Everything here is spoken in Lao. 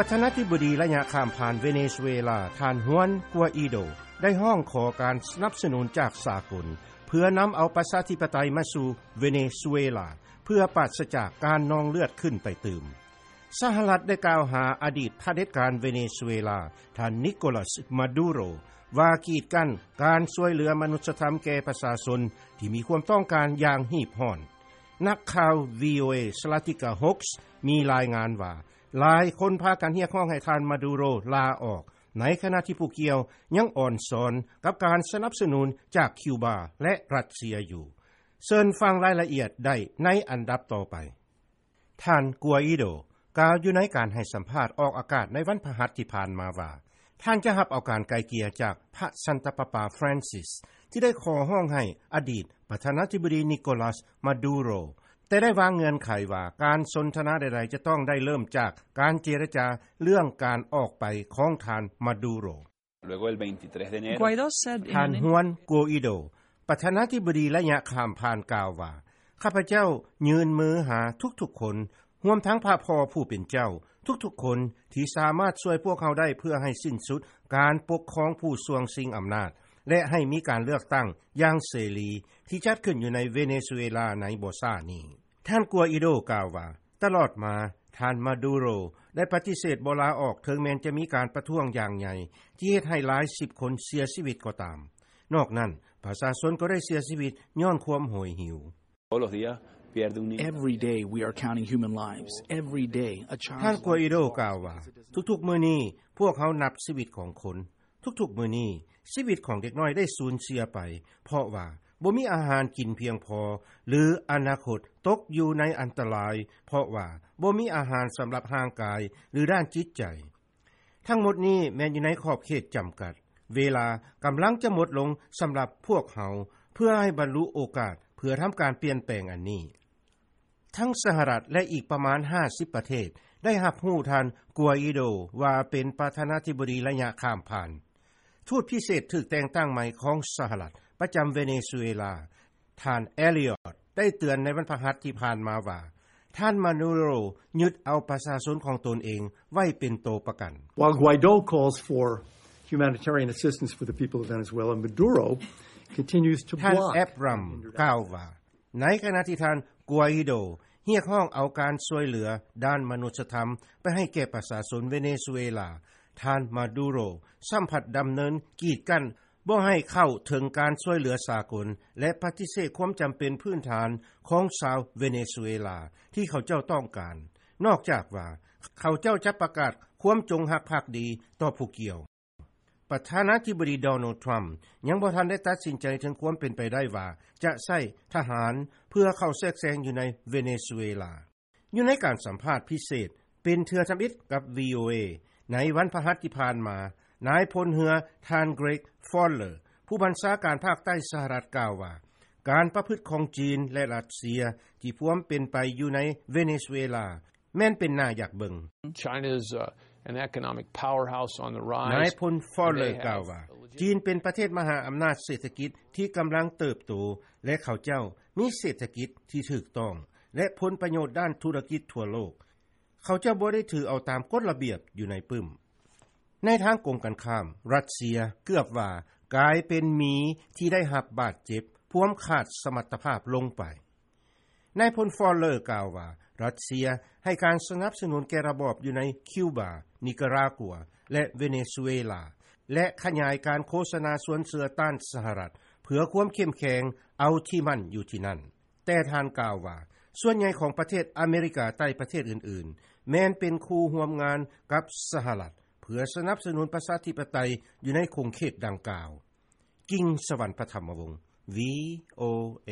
ປະທານາທິບໍດີໄລຍະຂ້າມຜ່ານເວເນຊູເອລາ ທ່ານ Juan Guaido ໄດ້ຮ້ອງຂໍການສະໜັບສະໜູນຈາກສາກົນ ເພື່ອນຳເອົາປະຊາທິປະໄຕມາສູ່ເວເນຊູເອລາ ເພື່ອປາສຈາກການນອງເລືອດຂຶ້ນໄປຕື່ມ. ສະຫະລັດໄດ້ກ່າວຫາອະດີດຜະເດັດການເວເນຊູເອລາ ທ່ານ Nicolas Maduro ວ່າກີດກັ້ນການຊ່ວຍເຫຼືອມະນຸດສະທຳແກ່ປະຊາຊົນທີ່ມີຄວາມຕ້ອງການຢ່າງຮີບຮ້ອນ. ນັກຂ່າວ VOA Zlatica Hoxha ມີລາຍງານວ່າ ຫຼາຍຄົນພາກັນຮຽກຮ້ອງໃຫ້ທ່ານ Maduro ລາອອກ, ໃນຂະນະທີ່ຜູ້ກ່ຽວຍັງອອນຊອນກັບການສະໜັບສະໜູນຈາກຄິວບາ ແລະ ຣັດເຊຍຢູ່. ເຊີນຟັງລາຍລະອຽດໄດ້ໃນອັນດັບຕໍ່ໄປ. ທ່ານ Guaido ກ່າວຢູ່ໃນການໃຫ້ສຳພາດອອກອາກາດໃນວັນພະຫັດທີ່ຜ່ານມາວ່າ ທ່ານຈະຮັບເອົາການໄກ່ເກ່ຍຈາກພະສັນຕະປາປາ Francis ທີ່ໄດ້ຂໍຮ້ອງໃຫ້ອະດີດປະທານາທິບໍດີ Nicolas Maduro ແຕ່ໄດ້ວາງເງື່ອນໄຂວ່າການສົນທະນາໃດໆຈະຕ້ອງໄດ້ເລີ່ມຈາກການເຈລະຈາເລື່ອງການອອກໄປຂອງທ່ານ Maduro. Luego del veintitrés de enero, Guaido said in ທ່ານ an ຮວນ ໂກອີໂດ ປະທານາທິບໍດີໄລຍະຂ້າມຜ່ານ ກ່າວວ່າ ຂ້າພະເຈົ້າຍື່ນມືຫາທຸກໆຄົນ, ຮວມທັງພະພໍ່ຜູ້ເປັນເຈົ້າ, ທຸກໆຄົນທີ່ສາມາດຊ່ວຍພວກເຮົາໄດ້ ເພື່ອໃຫ້ສິ້ນສຸດການປົກຄອງຜູ້ຊ່ວງຊິງອຳນາດ ແລະ ໃຫ້ມີການເລືອກຕັ້ງຢ່າງເສລີ ທີ່ຈັດຂຶ້ນຢູ່ໃນເວເນຊູເອລາໃນບໍ່ຊ້ານີ້. ທ່ານ ໂກອີໂດ ກ່າວວ່າ ຕະຫຼອດມາ ທ່ານ ມາດູໂຣ ໄດ້ປະຕິເສດບໍ່ລາອອກ ເຖິງແມ່ນຈະມີການປະທ້ວງຢ່າງໃຫຍ່ ທີ່ເຮັດໃຫ້ຫຼາຍສິບຄົນເສຍຊີວິດກໍຕາມ. ນອກນັ້ນ, ປະຊາຊົນກໍໄດ້ເສຍຊີວິດຍ້ອນຄວາມໂຫຍຫິວ. Todos los días pierde un niño. Every day we are counting human lives. Every day a child. ທ່ານ ໂກອີໂດ ກ່າວວ່າ ທຸກໆມື້ນີ້ ພວກເຮົານັບຊີວິດຂອງຄົນ. ທຸກໆມື້ນີ້ ຊີວິດຂອງເດັກນ້ອຍໄດ້ສູນເສຍໄປ ເພາະວ່າບໍ່ມີອາຫານກິນພຽງພໍ ຫຼື ອະນາຄົດຕົກຢູ່ໃນອັນຕະລາຍ ເພາະວ່າບໍ່ມີອາຫານສຳລັບຮ່າງກາຍ ຫຼື ດ້ານຈິດໃຈ. ທັງໝົດນີ້ແມ່ນຢູ່ໃນຂອບເຂດຈຳກັດ. ເວລາກຳລັງຈະໝົດລົງສຳລັບພວກເຮົາ ເພື່ອໃຫ້ບັນລຸໂອກາດ ເພື່ອທຳການປ່ຽນແປງອັນນີ້. ທັງສະຫະລັດ ແລະ ອີກປະມານຫ້າສິບປະເທດ ໄດ້ຮັບຮູ້ທ່ານ ໂກອີໂດ ວ່າເປັນປະທານາທິບໍດີໄລຍະຂ້າມຜ່ານ. ທູດພິເສດຖືກແຕ່ງຕັ້ງໃໝ່ຂອງສະຫະລັດ ປະຈຳເວເນຊູເອລາ ທ່ານ ແອລຽອດ ໄດ້ເຕືອນໃນວັນພະຫັດທີ່ຜ່ານມາວ່າ ທ່ານ ມາດູໂຣ ຍຶດເອົາປະຊາຊົນຂອງຕົນເອງໄວ້ເປັນໂຕປະກັນ. While Guaido calls for humanitarian assistance for the people of Venezuela, Maduro continues to block. ທ່ານ ແອັບຣຳ ກ່າວວ່າ ໃນຂະນະທີ່ທ່ານ ໂກອີໂດ ຮຽກຮ້ອງເອົາການຊ່ວຍເຫຼືອດ້ານມະນຸດສະທຳໄປໃຫ້ແກ່ປະຊາຊົນເວເນຊູເອລາ, ທ່ານ ມາດູໂຣ ຊ້ຳພັດດຳເນີນກີດກັ້ນບໍ່ໃຫ້ເຂົ້າເຖິງການຊ່ວຍເຫຼືອສາກົນ ແລະ ປະຕິເສດຄວາມຈຳເປັນພື້ນຖານຂອງຊາວເວເນຊູເອລາທີ່ເຂົາເຈົ້າຕ້ອງການ, ນອກຈາກວ່າເຂົາເຈົ້າຈະປະກາດຄວາມຈົງຮັກພັກດີຕໍ່ຜູ້ກ່ຽວ. ປະທານາທິບໍດີ ໂດນັລ ທຣຳ ຍັງບໍ່ທັນໄດ້ຕັດສິນໃຈເຖິງຄວາມເປັນໄປໄດ້ວ່າຈະໃຊ້ທະຫານເພື່ອເຂົ້າແຊກແຊງຢູ່ໃນເວເນຊູເອລາ. ຢູ່ໃນການສຳພາດພິເສດເປັນເທື່ອທຳອິດກັບ ວີໂອເອ ໃນວັນພະຫັດທີ່ຜ່ານມາ, ນາຍພົນເຮືອ ທ່ານ ເກຣັກ ຟອລເລີ ຜູ້ບັນຊາການພາກໃຕ້ສະຫະລັດ ກ່າວວ່າ ການປະພຶດຂອງຈີນ ແລະ ຣັດເຊຍທີ່ພວມເປັນໄປຢູ່ໃນເວເນຊູເອລາ ແມ່ນເປັນໜ້າຢາກເບິ່ງ. China's, uh, an economic powerhouse on the rise. ນາຍພົນ ຟອລເລີ ກ່າວວ່າ ຈີນເປັນປະເທດມະຫາອຳນາດເສດຖະກິດທີ່ກຳລັງເຕີບໂຕ ແລະ ເຂົາເຈົ້າມີເສດຖະກິດທີ່ຖືກຕ້ອງ ແລະ ຜົນປະໂຫຍດດ້ານທຸລະກິດທົ່ວໂລກ. ເຂົາເຈົ້າບໍ່ໄດ້ຖືເອົາຕາມກົດລະບຽບຢູ່ໃນປຶ້ມ. ໃນທາງກົງກັນຂ້າມ, ຣັດເຊຍເກືອບວ່າກາຍເປັນໝີທີ່ໄດ້ຮັບບາດເຈັບ ພວມຂາດສະມັດຕະພາບລົງໄປ. ນາຍພົນ ຟອລເລີ ກ່າວວ່າ ຣັດເຊຍໃຫ້ການສະໜັບສະໜູນແກ່ລະບອບຢູ່ໃນຄິວບາ, ນິກາຣາກົວ ແລະ ເວເນຊູເອລາ ແລະ ຂະຫຍາຍການໂຄສະນາຊວນເຊື່ອຕ້ານສະຫະລັດ ເພື່ອຄວາມເຂັ້ມແຂງເອົາທີ່ໝັ້ນຢູ່ທີ່ນັ້ນ. ແຕ່ທ່ານກ່າວວ່າ ສ່ວນໃຫຍ່ຂອງປະເທດອາເມລິກາໃຕ້ປະເທດອື່ນໆ ແມ່ນເປັນຄູ່ຮ່ວມງານກັບສະຫະລັດ ເພື່ອສະໜັບສະໜູນປະຊາທິປະໄຕຢູ່ໃນຂົງເຂດດັ່ງກ່າວ. ກິງ ສະຫວັນ ປະຖຳມະວົງ ວີໂອເອ.